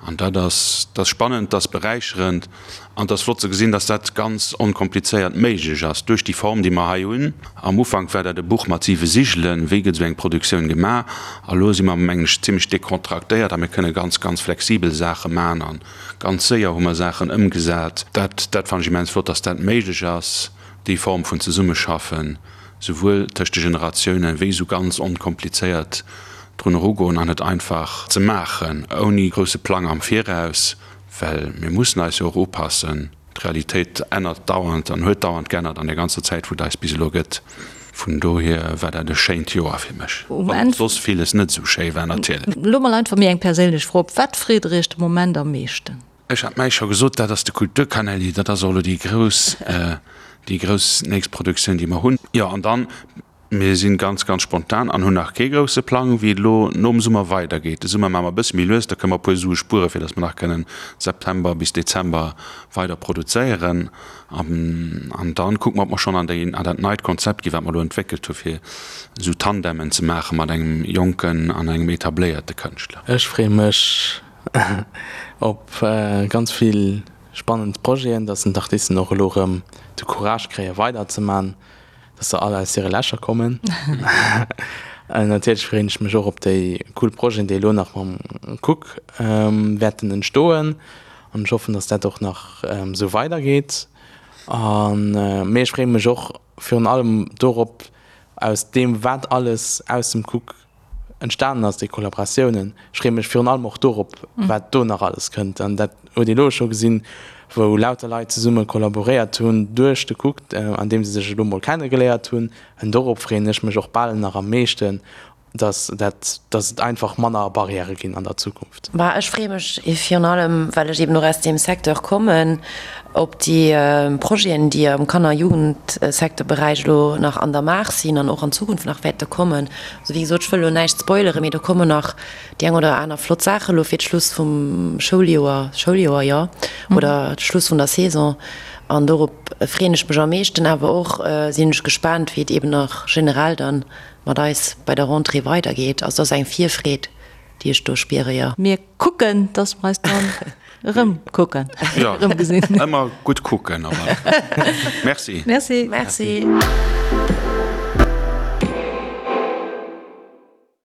S4: An dat ass, dat ass spannend, dat ass beräicherend an et ass flott ze gesinn, dass dat ganz onkomplizéiert méiglech ass duerch déi Form, déi mer hei hunn. Am Ufank war dat e Buch mat siwe Sigelen, wéi gëtt esou eng Produktioun gemaach. A lo si mer, mengen ech, zimmlech dekontraktéiert a mir kënne ganz, ganz flexibel Saache maachen an Ganz séier hu mer Saachen ëmgesat. Dat, dat fannen ech immens flott, dass dat méiglech ass, déi Form vun Zesummeschaffen, souwuel tëscht de Generatiounen, wéi esou ganz onkomplizéiert drun erugoen an et einfach ze maachen, ouni grousse Plang am Viraus, well mir mussen eis jo och upassen. D'Realitéit ännert dauernd an huet dauernd geännert an der ganzer Zäit, wou et eis bis elo gëtt. Vun dohier war dat e schéint Joer fir mech, wann och soss villes net esou schéi war natierlech.
S3: Elo mol einfach méi eng perséinlech Fro, Op wat freet der Iech de Moment am meeschten?
S4: Ech hat mäi scho gesot, dat ass de Kulturkanäli, dat ass och elo déi grouss, déi grouss nächst Produktioun, déi mer hunn. Jo, an dann. Mir sinn ganz, ganz spontan an hunn nach kee grousse Plang, wéi et elo nom Summer weidergeet. De Summer maache mer e bësse méi lues, da kënne mer e puer Sue spueren, fir datt mer nach kënnen September bis Dezember weider produzéieren. An dann kucke mer, ob mer schonn an déi, an dat neit Konzept ginn, wat mer elo entwéckelt hu fir esou Tandemen ze maache mat engem jonken an engem etabléierte Kënschtler.
S6: Ech freeë mech op ganz vill spannend Projeten, datt d'Artisten och elo erëm de Courage kréie weiderzemaachen. Dass se all aus hire Lächer kommen. Natierlech freeën ech mech och op déi cool Projeten, déi elo nach mam Cook wäerten entstoen. An ech hoffen, dass dat och nach esou weidergeet. An mee ech freeë mech och virun allem dorop, aus deem wat alles aus dem Cook entstanen ass, déi Kollaboratiounen. Ech freeë mech virun allem och dorop, wat do nach alles kënnt. An dat huet ee elo scho gesinn, wou lauter Leit zesumme kollaboréiert hunn duerch de Cook, an deem se sech elo mol kennegeléiert hunn. An dorop freeën ech mech och bal nach am meeschten, dass dat, dass et einfach manner Barrièrë ginn an der Zukunft.
S5: Bah, ech freeë mech virun allem, well ech eben och aus deem Secteur kommen, op déi Projeten, déi am Kanner a Jugendsecteurberäich elo nach an der Maach sinn an och an Zukunft nach wäerte kommen. Also wéi gesot, ech wëll elo näischt spoileren, mee do kommen nach déi eng oder aner flott Saache elo fir d'Schluss vum Schouljoer, Schouljoer, jo, oder d'Schluss vun der Saison. An dorop freeën ech mech am meeschten. Awer och sinn ech gespaant, wéi et eben nach generell dann mat eis bei der Rentrée weidergeet. Also dat ass eng Virfreed, déi ech do spiere, jo.
S3: Mir kucken, dass mer eis dann erëm kucken,
S4: erëm gesinn. Ëmmer gutt kucken, awer. Merci.
S3: Merci.
S5: Merci.